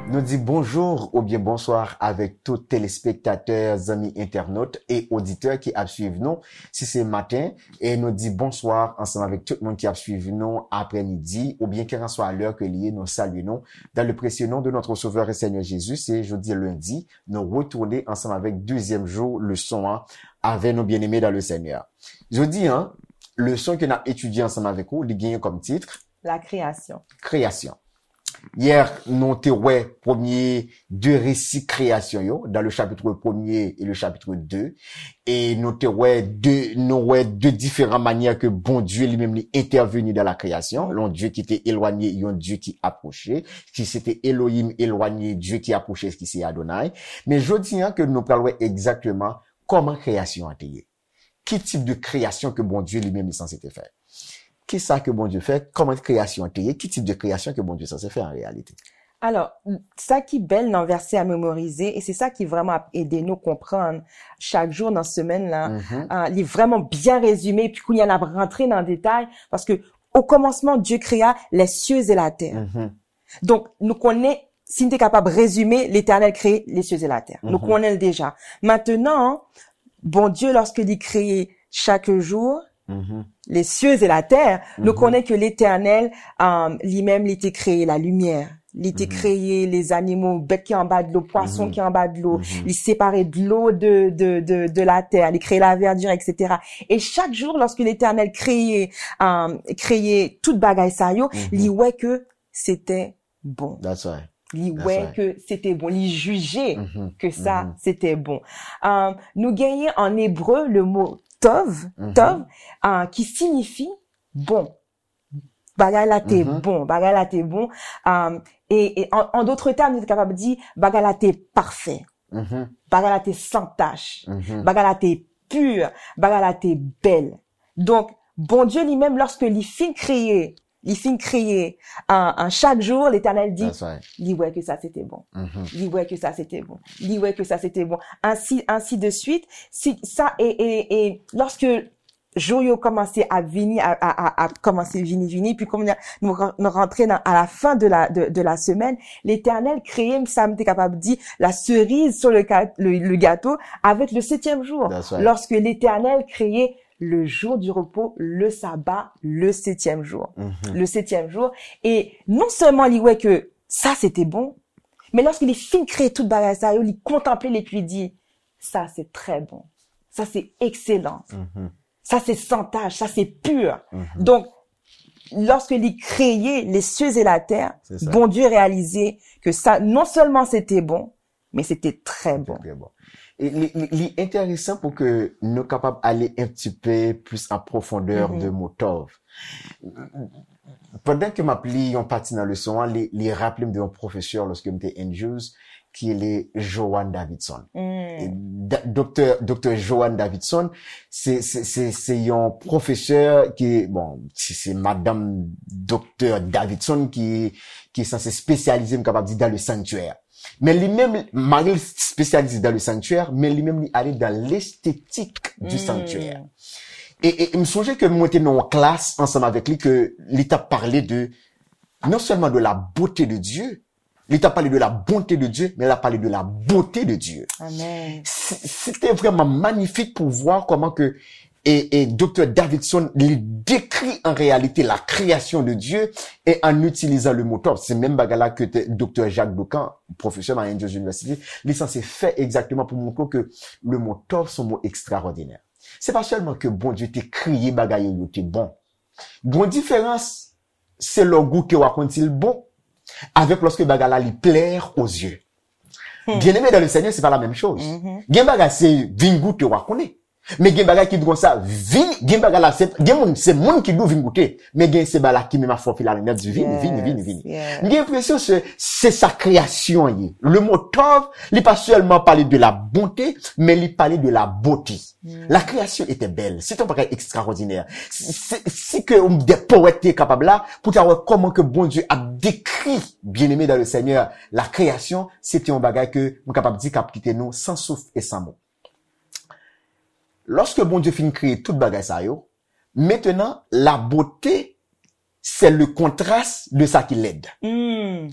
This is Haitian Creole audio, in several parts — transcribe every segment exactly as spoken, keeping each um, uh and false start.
Nou di bonjou oubyen bonswa avèk tout telespektatè, zanmi entènot e oditè ki ap swiv nou. Si se maten, e nou di bonswa ansanm avèk tout moun ki ap swiv nou aprèmidi, oubyen kèlkanswa lè ke li ye, nou salye nou dans le précieux nom de notre Sauveur et Seigneur Jésus. Se jodi lendi, nou retounen ansanm avèk dezyèm jou leson an avè nou, bien-aimés dans le Seigneur. Jodi an, leson ke n ap etidye ansanm avèk ou, li genyen kòm tit La création. Kreyasyon. Yè, nou te wè premye de resi kreyasyon yo, dans le chapitre premier et le chapitre deux. E nou te wè de, nou wè de diferan manyè ke Bondye li menm li entèveni dans la création. Yon Dye ki te elwanye, yon Dye ki apwoche, ki se te Elohim elwanye, Dye ki apwoche, ki se Adonai. Men jodi an ke nou pral wè egzakteman kòman kreyasyon an te ye. Ki tip de kreyasyon ke Bondye li menm li sanse te fè? Kisa ke Bondye fè? Kòman kreyasyon an te ye? Ki tip de kreyasyon ke Bondye sanse fè an reyalite? Alò, sa ki bèl nan vèsè a memorize, e se sa ki vrèman ap ede nou konprann chak jou nan semèn lan, ah, li vrèman byen rezime, epi kounye a n ap rantre nan detay, paske au commencement, Dieu créa les cieux et la terre. Donk, nou konnen, si n te kapab rezime, Letènèl kreye les cieux et la terre. Nou konnen l deja. Mentenan, Bondye, lòske li kreye chak jou, les cieux et la terre, nou konnen ke Letènèl, um, li menm, li te kreye la limyè. Li te kreye les animaux, bèt ki anba dlo, pwason ki anba dlo. Li separe dlo de, de, de, de la terre. Li kreye la verdure, et cetera. E chak jou, lòske Letènèl kreye, um, kreye tout bagay sa yo, li wè ke se te bon. That's right. Li That's wè right. ke se te bon. Li jije ke sa se te bon. Um, nou genyen an ebre le mo tov, tov, uh, ki siyifi bon. Bagay la te bon, bagay la te bon. Um, e, e an, an dòt tèm, nou te kapab di bagay la te pafè. Bagay la te san tach. Bagay la te pi. Bagay la te bèl. Donk, Bondye li menm, lòske li fin kreye, li fin kreye an, an chak jou, Letènèl di, That's right. li wè ke sa se te bon. Li wè ke sa se te bon. Li wè ke sa se te bon. Ainsi, ainsi de suite. Si, sa, e, e, e lòske jou yo kòmanse ap vini, a, a, a, a kòmanse vini, vini, pi kòm nou, nou rantre nan, à la fin de la, de, de la semaine, Letènèl kreye, sa m te kapab di, la cerise sur le, ga- le, le gâteau avec le septième jour. That's right. Lorsque Letènèl kreye le jour du repos, le sabbat, le septième jour. Le septième jour. E non sèlman li wè ke sa se te bon, men lòske li fin kreye tout bagay sa yo, li kontanple l epi li di, sa se trè bon. Sa se ekselan. Sa se san tach, sa se pi. Donk, lòske li kreye les cieux et la terre, C'est ça. Bondye reyalize ke sa, non sèlman se te bon, men se te trè bon. Trè bon. E li, li, li enteresan pou ke nou kapab ale un petit peu plus en profondeur de mo tov. Pandan ke m ap li yon pati nan leson an, li, li raple m de yon pwofesè lòske m te Andrews, ki rele Joan Davidson. E da- Doktè, Doktè Joan Davidson, se, se, se, se yon pwofesè ki, bon, se, se madanm Doktè Davidson ki, ki sanse espesyalize, m kapab di, dans le sanctuaire. Men li menm, mari l espesyalize dans le sanctuaire, men li menm li ale dans l'esthétique du sanctuaire. E, e m sonje ke mwen te nan yon klas ansanm avèk li, ke li t ap pale de, non sèlman de la beauté de Dieu, li t ap pale de la bonté de Dieu, men l ap pale de la beauté de Dieu. Amen. Se te vrèman manifik pou w wè kòman ke e, e Doktè Davidson li dekri an reyalite la création de Dieu e an itilizan le mo tov. Se menm bagay la ke te- Doktè Jacques Docan, pwofesè nan Andrews University, li sanse fè egzakteman pou montre w ke le mo tov se yon mo ekstraòdinè. Se pa sèlman ke Bondye te kreye bagay yo, yo te bon. Gon diferans se lè w goute w a konn si l bon, avèk lòske bagay la li plaire aux yeux. Bien-aimé dans le Seigneur, se pa la menm choz. Gen bagay se vin goute w a konnen. Men gen bagay ki di konsa, vin, gen bagay la, se, gen moun, se moun ki di w vin goute. Men gen se bagay la ki menm ap fè w file alen, di vini, vini, vini, vini. Yes. M gen enpresyon se, se sa kreyasyon an ye. Le mo tov, li pa sèlman pale de la bonté, men li pale de la beauté. La création était belle. Se te yon bagay ekstraòdinè. Si, si, si ke de powèt te kapab la, pou ta wè kòman ke Bondye ap dekri, bien-aimé dans le Seigneur, la création, se te yon bagay ke m kapab di k ap kite nou san souf e san mo. Lòske Bondye fin kreye tout bagay sa yo, mentenan, la bote, se le kontras de sa ki lèd. Hmm.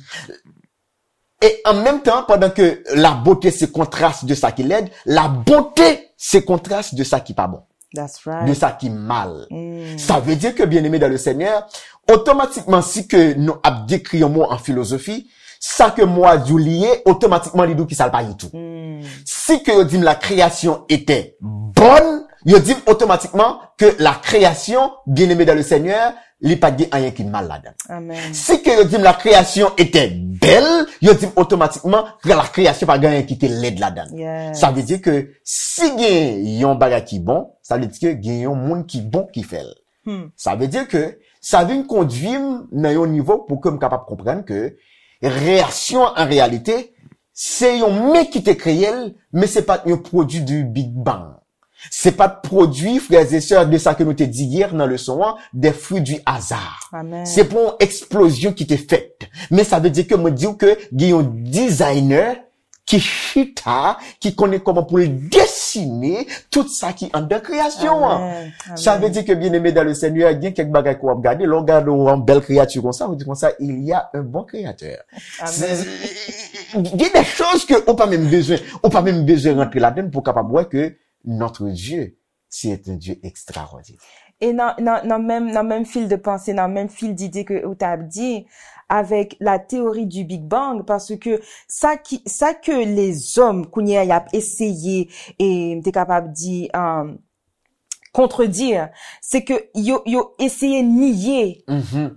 E an menm tan, pandan ke la bote se kontras de sa ki lèd, la bonte se kontras de sa ki pa bon, That's de right. sa ki mal. Hmm. Sa vle di ke, byeneme dan le Senyè, otomatikman, si ke nou ap dekri yon mo an filozofi, sa ke mo a di w li ye, otomatikman li di w ki sa l pa ye tou. Hmm. Si ke yo di m la création était bonne, yo di m otomatikman ke la création, byeneme dan le Senyè, li pa t gen anyen ki mal ladan l. Amen. Si ke yo di m la création était belle, yo di m otomatikman ke la création pa gen anyen ki te lèd ladan l. Yes. Sa vle di ke si gen yon bagay ki bon, sa vle di ke gen yon moun ki bon ki fè l. Hmm. Sa vle di ke sa vin kondwi m nan yon nivo pou ke m kapab konprann ke kreasyon an reyalite, se yon men ki te kreye l, men se pa t yon pwodui du Big Bang. Se pa t pwodui, frères et sœurs, de sa ke nou te di yè nan leson an, des fruits du hasard. Amen. Se pa yon eksplozyon ki te fèt. Men sa vle di ke mwen di w ke gen yon designer ki chita, ki konnen kòman pou l desine tout sa ki anndan kreyasyon an. Amen. Sa vle di ke, byeneme dan le Senyè, gen kèk bagay ke w ap gade, lè w gade yon bèl kreyati konsa, ou di konsa, il y a un bon créateur. Amen. Gen de choz ke ou pa menm bezwen, ou pa menm bezwen rantre ladan l pou w kapab wè ke notre Dieu, c'est un Dieu extraordinaire. E nan, nan, nan menm, nan menm fil de panse, nan menm fil dide ke ou t ap di, avèk la théorie du Big Bang, paske sa ki, sa ke lezòm kounye a y ap eseye, e m te kapab di, um, contredire, se ke yo, yo eseye niye, Mhm.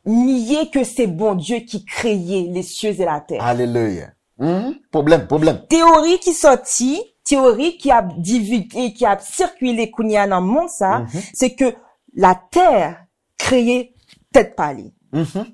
niye ke se Bondye ki kreye les cieux et la terre. Alelouya. Mhm. Pwoblèm, pwoblèm. Teyori ki sòti, teyori ki ap divige, ki ap sikile kounye a nan mond sa, Mhm. se ke latè kreye tèt pa li. Mhm.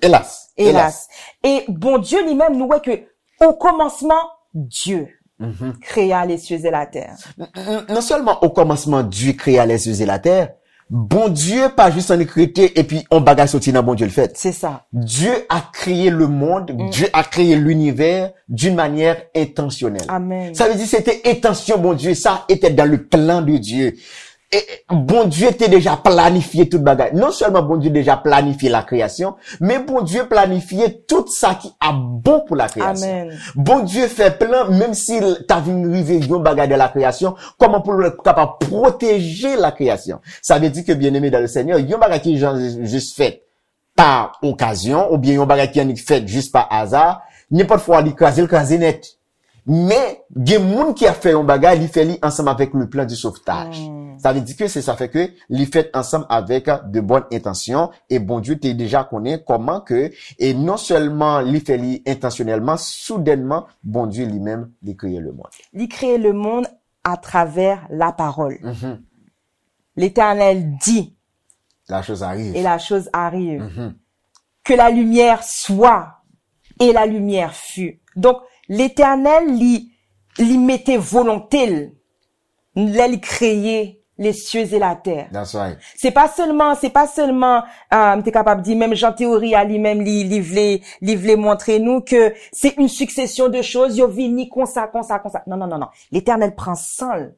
Elas. Elas. E Bondye li menm, nou wè ke o komansman, Dieu Mhm. créa les cieux et la terre. N- n- Non sèlman o kòmansman Dye kreye lè sye e latè, Bondye pa jis annik rete epi on bagay soti nan Bondye l fèt. Se sa. Dieu a créé le monde, Dieu a créé l'univers d'une manière intentionnelle. Amen. Sa vle di se te entansyon Bondye, ça était dans le plan de Dieu. E Bondye te deja planifye tout bagay. Non sèlman Bondye deja planifye la création, men Bondye planifye tout sa ki ap bon pou la création. Amen. Bondye fè plan, menm si l ta vin rive yon bagay de la création, kòman pou l kapab pwoteje la création. Sa vle di ke, byeneme dan le Senyè, yon bagay ki jan jis fèt pa okazyon, oubyen yon bagay ki annik fèt jis pa aza, nenpòt fwa li kraze, l kraze nèt. Men, gen moun ki ap fè yon bagay, li fè li ansanm avèk le plan du sauvetage. Sa vle di ke se sa fè ke li fèt ansanm avèk de bonnes intentions, e Bondye te deja konnen kòman ke, e non sèlman li fè li entansyonèlman, soudènman, Bondye li menm, li kreye le monde. Li kreye le monde à travers la parole. Mhm. L'Éternel dit, La chose arrive. et la chose arrive. Mhm. Que la lumière soit, et la lumière fut. Donk, Letènèl, li, li mete volonte l lè li kreye les cieux et la terre. That's right. Se pa sèlman, se pa sèlman, euh, m te kapab di, menm jan teyori a li menm, li, li vle, li vle montre nou ke se une succession de choses, yo vini konsa, konsa, konsa. Non, non, non, non. Letènèl pran san l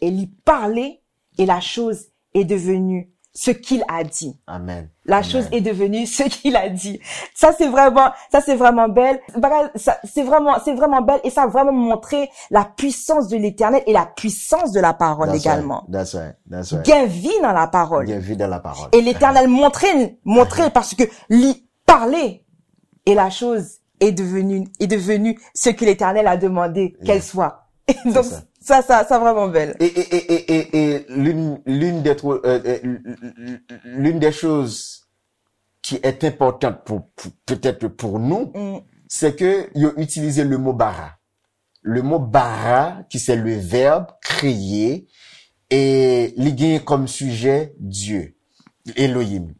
e li pale, et la chose est devenue ce qu'il a dit. Amen. La chose Amen. Est devenue ce qu'il a dit. Sa se vrèman, sa se vrèman bèl. Bagay, sa, se vrèman, se vrèman bèl, e sa vrèman montre la puissance de l'Éternel et la puissance de la parole That's également. Right. That's right. That's right. Gen vi nan la parole. Gen vi nan la parole. Et l'Éternel montre, montre parce que li pale, et la chose est devenue, est devenue ce que l'Éternel a demandé qu'elle Yes. Soit. Donc, ça. Ça, ça, ça vraiment belle. Et, et, et, et, et, et l'une, l'une des tro- euh, euh, l'une des choses qui est importante pour, pour- peut-être pour nous, Mm. c'est que ils ont utilisé le mot bara. Le mot bara, qui c'est le verbe créer, et li gen comme sujet Dieu, Elohim.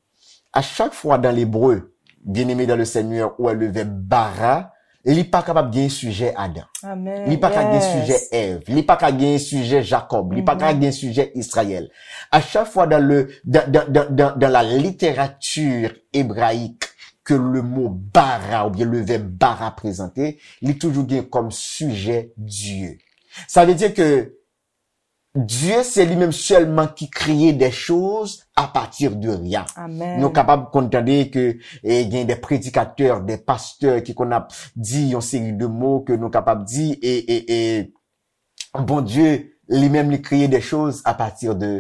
À chaque fois dans l'hébreu, bien-aimé dans le Seigneur, ou le verbe bara, li pa kapab gen sijè Adan. Amen. Li pa ka gen Yes. sijè Èv, li pa ka gen sijè Jakòb, li pa ka gen sijè Izrayèl. À chaque fois dans le dans, dans, dans, dans, dans la littérature hébraïque que le mot bara ou bien le verbe bara présenté, li toujou gen comme sujet Dieu. Ça veut dire que Dieu, c'est lui-même seulement qui crée des choses à partir de rien. Amen. Nou kapab konn tande ke e, gen de predikatè, de pastè ki konn ap di yon seri de mo ke nou kapab di e, e, e Bondye li menm li kreye de choz a pati de,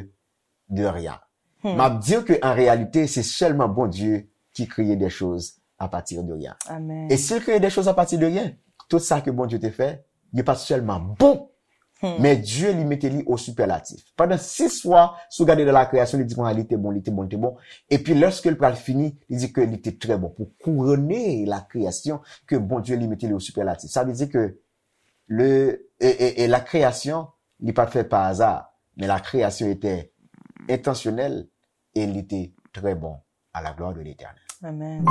de rien. M ap di ke an reyalite se sèlman Bondye ki kreye de choz a pati de rien. Amen. E si l kreye de choz a pati de rien, tout sa ke Bondye te fè, li pa t sèlman bon, men Dye li mete li o sipèlatif. Pandan sis fwa, si w gade nan la kreyasyon, li di konsa, li te bon, li te bon, li te bon. Epi lèske l pral fini, li di ke li te trè bon. Pou kourone la kreyasyon ke Bondye li mete li o sipèlatif. Sa vle di ke le, e, e, e la kreyasyon, li pa t fèt pa aza, men la kreyasyon ete entansyonèl e li te trè bon à la gloire de l'Éternel. Amen.